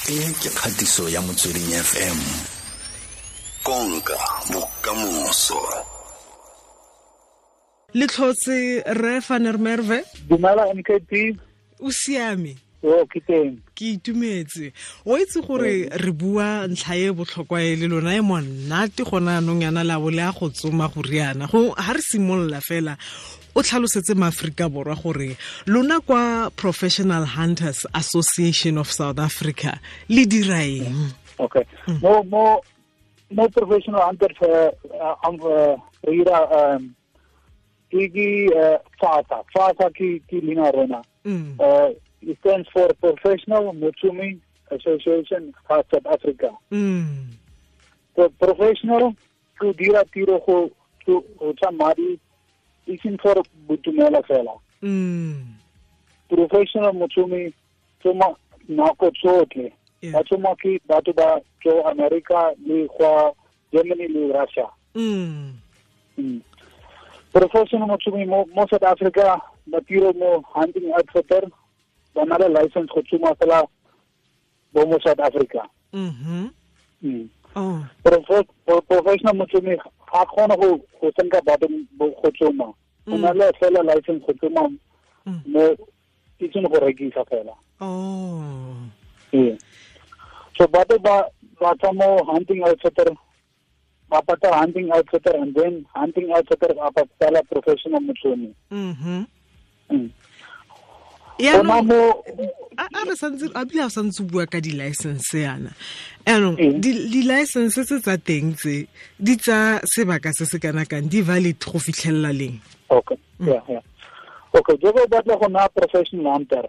E ke kgatiso ya Motsweding FM. Konka bokamoso. Le tlhotse re Van der Merwe. Dumela MKP. O siame? O ke teng. Ke itumetse. O itse gore re bua ntlha e botlhokwa e le lona e monate gona anong yana la bo le a go tsoma go riana. Go ha re simolola fela o tlhalosetse maAfrika Borwa gore lona kwa Professional Hunters Association of South Africa le dira eng? Okay. Mo Professional Hunters re dira ke FASA ke leina rona. It stands for Professional Motsumi Association of South Africa. So professional to dira tiro go tsa madi iseng for boitumelo fela. Professional motsumi tsoma nako tsotlhe. Ba tsoma ke batho ba tswa America le kwa Germany le Russia. Professional motsumi mo South Africa ba tiro mo hunting outfitter ba na le license go tsoma fela bo mo South Africa. Oh. Professional motsumi ga kgone go senka batho go tsoma. O na le fela license go tsoma mo itseng go rekisa fela. Oh. Yeah. So batho ba tswa mo hunting outfitter, ba patala hunting outfitter and then hunting outfitter ba patala professional motsumi. A re santse a bile a santse bua ka di-license yana. Anong di-license tse tsa teng tse di tsa sebaka se se kana kang, di valid go fitlhelela leng? Okay. Yeah, yeah. Okay, jaaka o batla go nna professional hunter.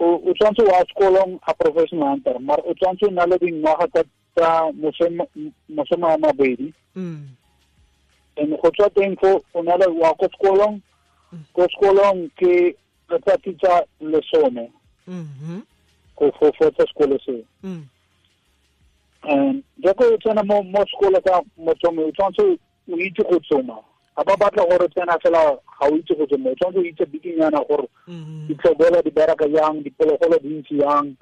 O tshwanetse wa sekolong a professional hunter, mara o tshwanetse o na le dingwaga tsa masome a mabedi. And go tswa teng fo o na le wa ko sekolong, ko sekolong ke letsatsi tsa 10. Go fetsa sekolo seo. And jaaka o tsena mo sekolo sa motsomi, o tshwanetse o itse go tsoma. Ga ba batla gore tsena fela ga o itse go tsoma, o tshwanetse o itse bikinyana gore ditlhobolo di bereka jang, diphologolo di ntse jang.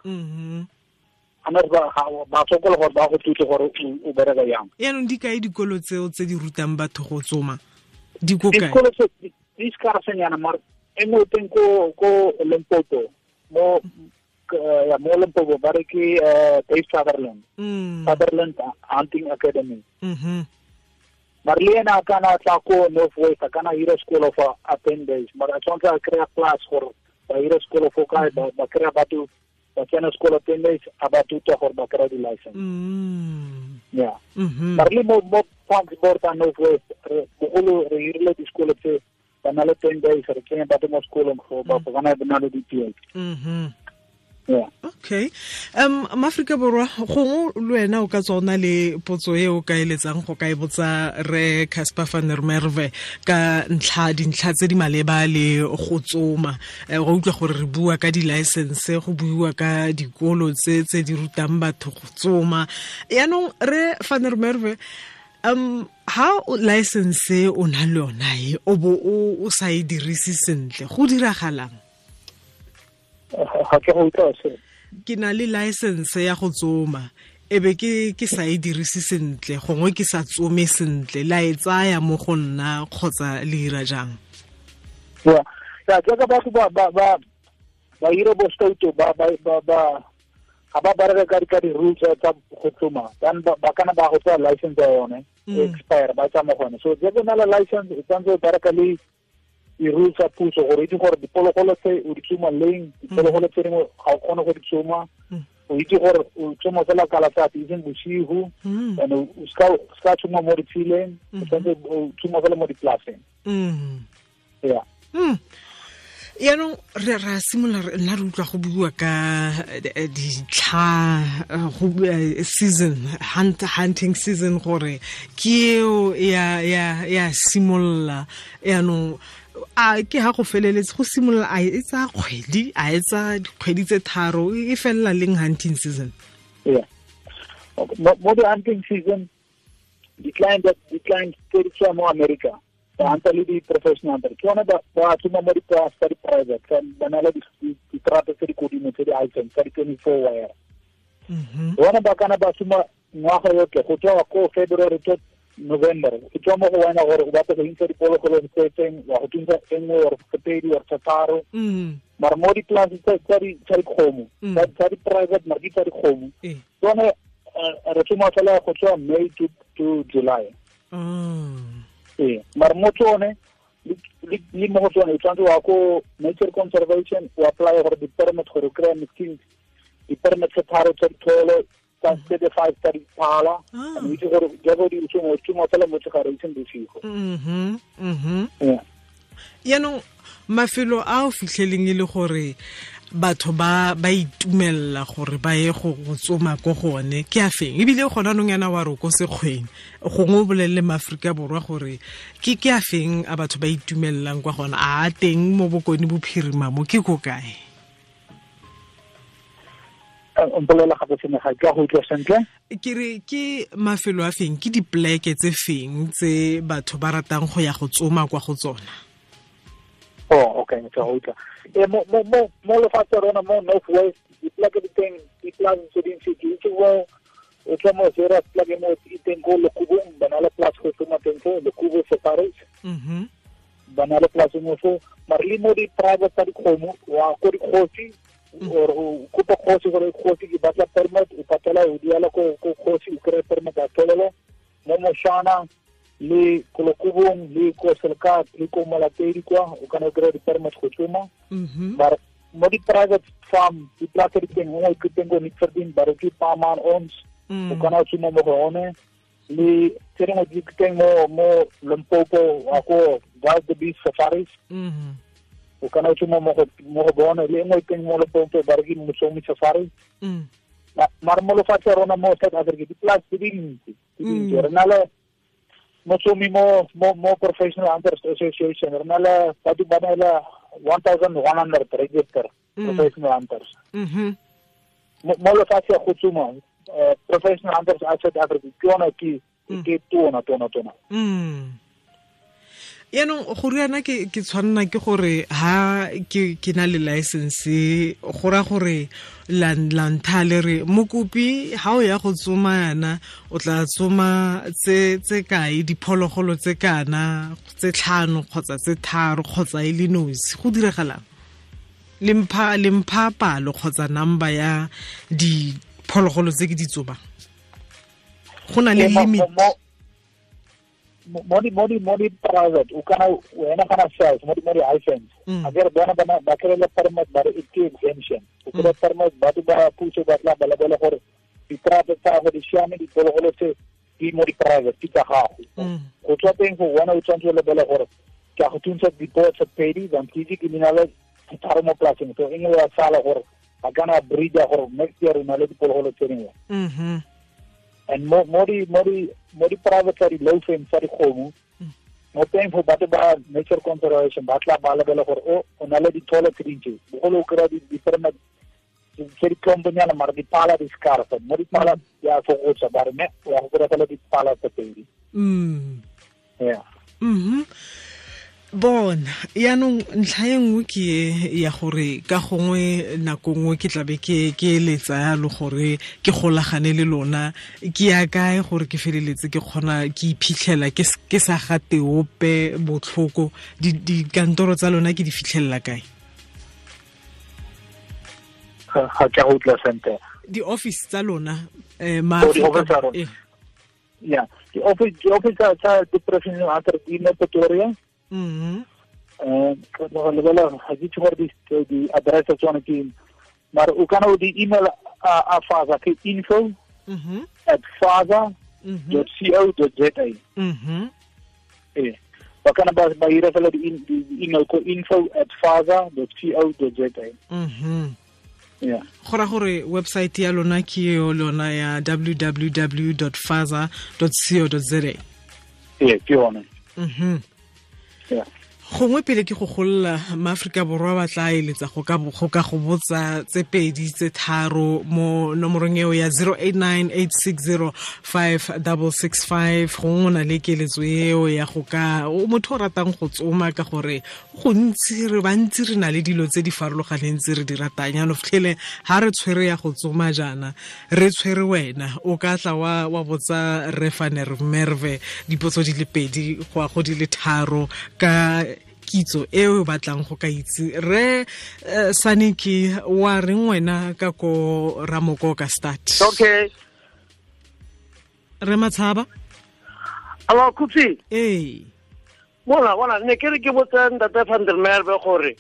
Ba sokola gore ba go thuse gore o bereka jang. Yaanong di kae dikolo tseo tse di rutang batho go tsoma? Di ko kae? Dikolo tse di scarsenyana, mara e nngwe teng ko Limpopo, mo Limpopo ba re ke Dave Sutherland. Sutherland Hunting Academy. Mara le ena a kana tla ko North West, a kana hira sekolo for 10 days. Mara a tshwanetse a kry-a class gore ba hira sekolo fo kae, ba kry-a batho ba tsena sekolo 10 days, a ba thuta gore ba kry-a di-license. Yeah. Mara le mo Parks Board a North West, bogolo re hirile disekolo tse ba na le 10 days, re tsenya batho mo sekolong go ba bona ba na le di-PhD. Yeah. Okay. Maaforika Borwa, gongwe le wena o ka tswa o na le potso e o ka eletsang go ka e botsa re Casper van der Merwe ka ntlha dintlha tse di maleba le go tsoma. Go utlwa gore re bua ka di-license, go buiwa ka dikolo tse tse di rutang batho go tsoma. Yaanong re van der Merwe, ha license o na le yona e o bo o sa e dirise sentle, go diragalang? Ga ke go utlwa se. Ke na le license ya go tsoma, ebe ke sa e dirise sentle, gongwe ke sa tsome sentle, la e tsaya mo go nna kgotsa le ira jang? Yeah, jaaka batho ba ira bo stouto ba ga ba bereka ka di-rules tsa go tsoma, then ba kana ba go tsaya license ya yone expire, ba tsa mo gone. So jaaka o na le license, o tshwanetse o bereka le di-rules tsa puso gore itse gore diphologolo tse o di tsoma leng, diphologolo tse dingwe ga o kgone go di tsoma. O itse gore o tsoma fela ka letsatsi, eseng bosigo, and o ska tsoma mo ditshileng, o tshwanetse o tsoma fela mo dipolaseng. Yeah. Yaanong re ra simolola nna re utlwa go bua ka ditlha, go season, hunting season, gore ke eo ya simolola. Yaanong a ke ha go feleletse go simolola, a e tsaya kgwedi, a e tsaya dikgwedi tse 3, e felela leng hunting season? Yeah. Mo the hunting season, di-client tse di tswa mo America. Ba hunter le di-professional hunter ke yone ba tsoma mo dipolase tsa di-private, ba na le diterata tse di kodimo tse di items tsa di-24 wire. Bona ba kana ba tsoma ngwaga yotlhe go tswa ko February to November. E tswa mo go wena gore o batla go intsha diphologolo tse teng, wa go thuntsa e nngwe or tse pedi or tse tharo. Mara mo dipolase tsa dikgomo, tsa di-private mara ke tsa dikgomo, tsone re tsoma fela go tswa May to July. Ee, mara mo tsone le mo go tsone o tshwanetse wa ko Nature Conservation o apply gore di-permit gore o kry-a machine di-permit tse tharo tsa ditholo tsa 35 tsa diphala. And o itse gore jaaka di tsoma o tsoma fela motshegare e seng bosigo. Yaanong mafelo a o fitlheleng e le gore batho ba itumella gore ba ye go tsoma ko gone ke a feng, ebile gona nong yana wa re ko sekgweng, gongwe o bolelele maAforika Borwa gore ke a feng a batho ba itumellang kwa gona, a teng mo Bokone Bophirima mo ke ko kae? Mpolelela gape sene ga ke a go utlwa sentle. Ke re ke mafelo a feng, ke dipleke tse feng tse batho ba ratang go ya go tsoma kwa go tsona? Oh, okay, ke a go utlwa. E mo mo mo mo lefatshe rona mo North West dipleke di teng, diplase tse dintsi ke itse mo o tswa mo zera pleke mo e teng ko Lekubong, ba na le place go tsoma teng fo Lekubo Safaris. Ba na le place mo fo, mara le mo di-private tsa dikgomo wa ko dikgosi or o kopa kgosi gore kgosi ke batla permit, o patela o duela ko kgosi o kry-e permit a tholelo mo Moshana le ko Lekubong le ko Selkat le ko Molatedi kwa o kana o kry-a di-permit go tsoma. Mara mo di-private farm diplase di teng nngwe ke teng ko Nickverdien ba re ke Paman Ons, o kana o tsoma mo go one. Le tse dingwe di teng mo Limpopo wa ko Wild Beast Safaris, o kana o tsoma mo go bone. Le nngwe teng mo Limpopo ba re ke Motsomi Safari. Mara mo lefatshe rona mo South Africa diplase di dintsi di dintsi. Re na le Motsomi mo Professional Hunters Association, re na le batho ba na le 1100 register professional hunters. Mo lefatshe go tsoma Professional Hunters South Africa ke yona ke tona tona tona. Yaanong go riana ke tshwanna ke gore ha ke na le license go ra gore la ntha le re mokopi ha o ya go tsoma yana o tla tsoma tse kae, diphologolo tse kana tse 5 kgotsa tse 3 kgotsa e le nosi, go diragalang? Le mpha palo kgotsa number ya diphologolo tse ke di tsomang, go na le limit? Mo di private o kana wena kana sales mo di license a ke re bona ba kry le permit ba re ke exemption, o kry permit batho ba puso ba tla ba lebela gore diterata tsa gago di siame, diphologolo tse di mo di-private ke tsa gago. Go tswa teng go wena o tshwanetse o lebele gore ke a go thuntsha dipoo tse pedi than ke ke na le tharo mo polaseng, so e nngwe ya sala gore ba kana breeder gore next year o na le diphologolo tse dingwe. And mo di private tsa di-low fence tsa dikgomo mo teng fo batho ba Nature Conservation ba tla ba lebela gore o na le ditholo tse dintsi, bogolo o kry-a di-permit tse di tlomponyana mara diphala di scarce, mo diphala di a fokotsa ba re ne wa go kry-a fela diphala tse pedi. Yeah. Bona yaanong ntlha e nngwe ke ya gore ka gongwe nako nngwe ke tlabe ke eletsa yalo gore ke golagane le lona, ke ya kae gore ke feleletse ke kgona ke iphitlhela ke sa gate ope botlhoko, dikantoro tsa lona ke di fitlhelela kae? Ga ke go utlwa sentle. Di-office tsa lona yeah, di-office tsa di-professional hunter di mo Pretoria. Lebela ga ke itse gore di-address tsa tsone ke, mara o kana o di-email a FASA ke info at fasa.co.za. Ee, ba kana ba ira fela di-email ko info at fasa.co.za. Yeah. Go ra gore website ya lona ke yo lona ya www.fasa.co.za. Ee, ke yone. Yeah. Gongwe pele ke go golola maAforika Borwa ba tla eletsa go ka go botsa tse pedi tse tharo mo nomorong eo ya 0898605665. Gongwe o na le keletso eo ya go ka o motho o ratang go tsoma, ka gore gontsi re bantsi re na le dilo tse di farologaneng tse re di ratang. Jaanong fitlhele ha re tshwere ya go tsoma jaana, re tshwere wena o ka tla wa botsa re Van der Merwe dipotso di le pedi go ya go di le tharo ka kitso e o batlang go ka itse. Re Saniki, wa reng wena ka ko Ramoko ka start? Okay. Re Matshaba. Alo Khutsi. Ee. Bona ne ke re ke botsa ntate Van der Merwe gore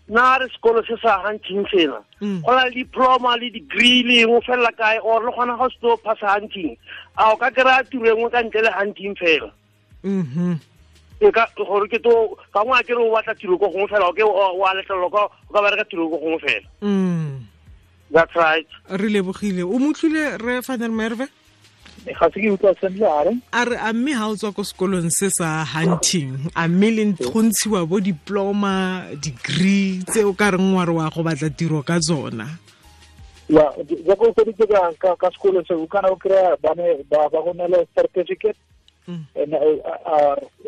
na re sekolo se sa hunting sena go na le diploma le degree le eng o felela kae, or le kgona go se tlo phasa hunting, a o ka kry-a tiro e nngwe ka ntle le hunting fela? E ka gore ke to ka ngwe a kere o batla tiro ko gongwe fela, o ke wa letlelelwa ka o ka bereka tiro ko gongwe fela. That's right. Re lebogile. O motlhile re Van der Merwe? Ga se ke utlwa sentle. A re? A re a mme ha o tswa ko sekolong se sa hunting, a mme le go ntshiwa bo diploma, degree tse o ka reng wa re wa go batla tiro ka tsona? Ya, jaaka o feditse ka sekolo se, o kana o kry-a bane ba go neela certificate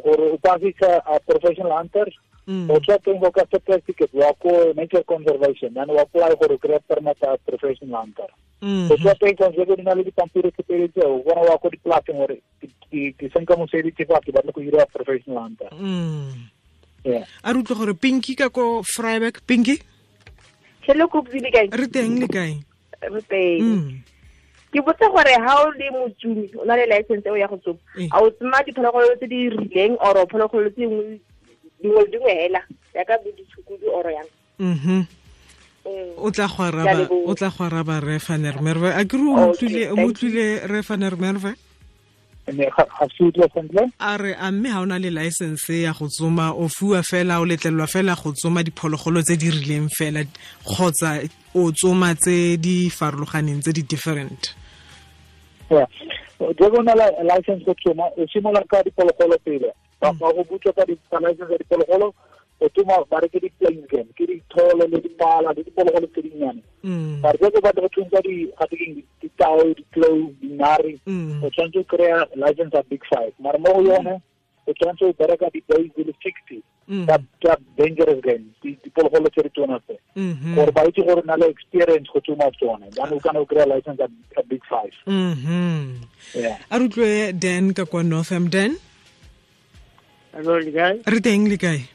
gore o pasisa a professional hunter. O tswa teng go ka certificate wa ko nature conservation, then o apply gore o kry-a permit a professional hunter. O tswa teng conservation na le dipampiri tse pedi tseo, o bona wa ko dipolaseng gore ke senka mosebetsi fa ke batla go dira professional hunter. Yeah. A re utlwe gore Pinky ka ko Vryburg. Pinky? Hello Khutsi, le kae? Re teng, le kae? Re teng. Ke botsa gore ha o le motsumi, o na le license eo ya go tsoma, a o tsoma diphologolo tse di rileng or phologolo tse dingwe le dingwe hela jaaka bo ditshukudu or yang? O tla go araba re Van der Merwe. A ke re o utlwile re Van der Merwe? Ga se utlwa sentle. A re a mme ha o na le license ya go tsoma, o fiwa fela, o letlelelwa fela go tsoma diphologolo tse di rileng fela, kgotsa o tsoma tse di farologaneng, tse di different? Yeah. Jaaka o na le license go tsoma, o simolola ka diphologolo pele. Ba go butswa ka license ya diphologolo, o tsoma ba re ke di-plain game, ke ditholo le dipala le diphologolo tse dinnyane. Mare jaaka o batla go thuntsa ditao, ditlou, dinare, o tshwanetse o kry-a license ya big five. Mare mo go yone o tshwanetse o bereka di-days di le 60 tsa dangerous game, diphologolo tse di tsona tse, gore ba itse gore na le experience go tsoma tsone, jaanong o kana o kry-a license ya big five. Yeah. A re utlwe Dan ka kwa Northam. Dan? Hello, le kae? Re teng, le kae?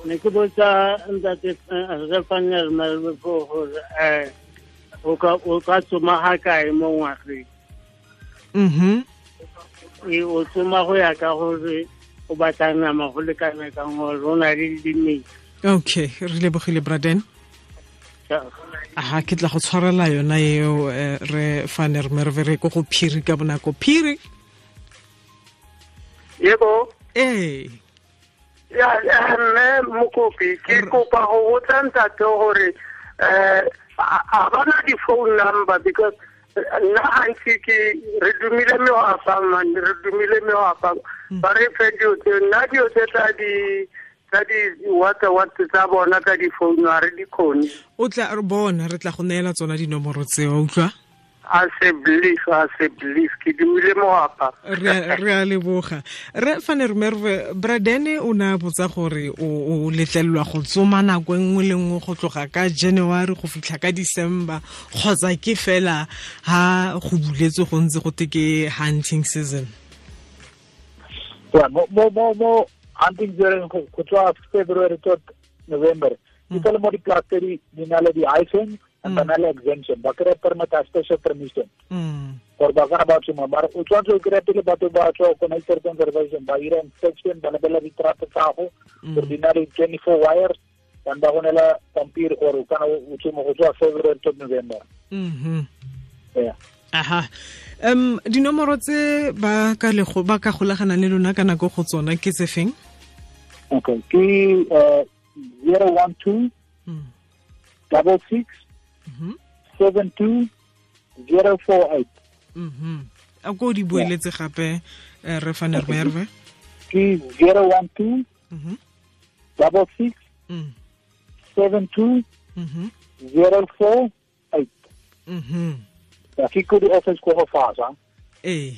Ne ke botsa ntate re Van der Merwe gore o ka tsoma ga kae mo ngwageng? O tsoma go ya ka gore o batla nama go lekana kang, gore o na le limit. Okay, re lebogile Braden. Aha, ke tla go tshwarela yona eo re Van der Merwe. Re ko go Phiri ka bonako. Phiri? Yebo. Ee. Ya, mme Mokopi, ke kopa go botsa ntate gore a bana di-phone number, because nna gantsi ke re dumile mewapa, man, re dumile mewapa, ba re fe dilo tse, nna dilo tse tsa di-WhatsApp tsa bona tsa di-phone ga re di kgone. O tla re bona, re tla go neela tsona dinomoro tseo, utlwa? A se belief, ke dumile moapa. Re a leboga. Re Van der Merwe, Bradene o ne a botsa gore o letlelelwa go tsoma nako e nngwe le nngwe go tloga ka January go fitlha ka December, kgotsa ke fela ha go buletswe go ntse go te ke hunting season? Yeah, mo hunting season go tswa February to November. Ke le mo dipolaseng di na le di-hyphen and ba na le exemption, ba kry-a permit a special permission gore ba kana ba tsoma. Mare o tshwanetse o kry-a pele batho ba tswa ko nature conservation, ba ira inspection, ba lebelela ditrapo tsa gago gore di na le 24 wires, then ba go neela pampiri gore o kana o tsoma go tswa February to November. Yeah. Aha. Dinomoro tse ba ka golaganang le lona ka nako go tsona ke tse feng? Okay, ke 012 66 72 048. A ko di boeletse gape re Van der Merwe? Ke 012 66 72 048. Ya ke ko di office ko go fasa. Ee.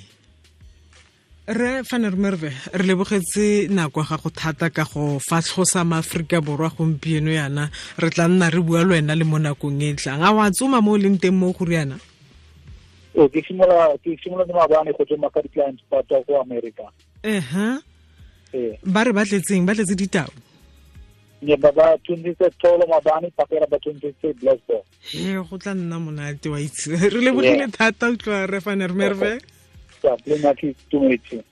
Re Van der Merwe, re lebogetse nako ga go thata ka go fatlhosa maAforika Borwa gompieno yana. Re tla nna re bua le wena le mo nakong e tlang. A wa tsoma mo o leng teng mo go riana? Ee, ke simolola maabane go tsoma ka di-clients ba tswa ko America. Ee. Ba re ba tletseng, ba tletse ditau. Ne ba ba tshwanetse tholo maabane, pakela ba tshwanetse blackboard. He, go tla nna monate wa itse. Re lebogile thata utlwa re Van der Merwe.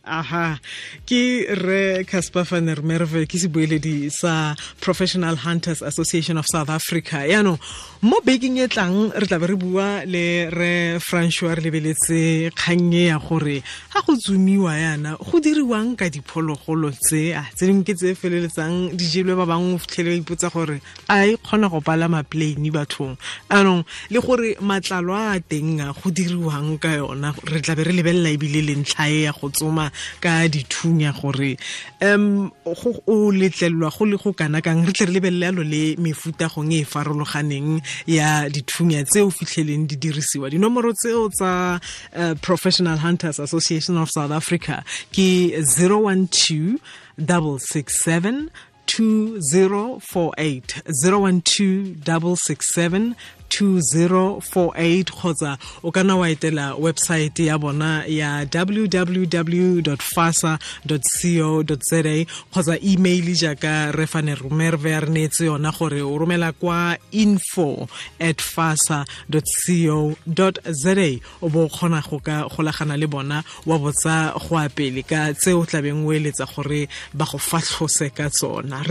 Aha, ke re Casper van der Merwe, ke sebueledi sa Professional Hunters Association of South Africa. Yaanong mo bekeng e tlang re tla be re bua le re Francois, re lebeletse kgang e ya gore ga go tsomiwa yana go diriwang ka diphologolo tse a tse dingwe ke tse feleletsang di jelwe, ba bangwe o fitlhele ba ipotsa gore a e kgona go palama plane bathong. Anong le gore matlalo a teng a go diriwang ka yona, re tla be re lebelela ebile le ntlha e ya go tsoma ka dithunya gore go o letlelelwa go le go kana kang. Re tle re lebelele yalo le mefuta gong e farologaneng ya dithunya tse o fitlheleng di dirisiwa. Dinomoro tseo tsa Professional Hunters Association of South Africa ke 012 667 2048, 012 667 2048, kgotsa o kana wa etela website ya bona ya www.fasa.co.za, kgotsa email jaaka re Van der Merwe a re neetse yona gore o romela kwa info@fasa.co.za, o bo kgona go ka golagana le bona wa botsa go a pele ka tse o tlabeng o eletsa gore ba go fatlhose ka tsona.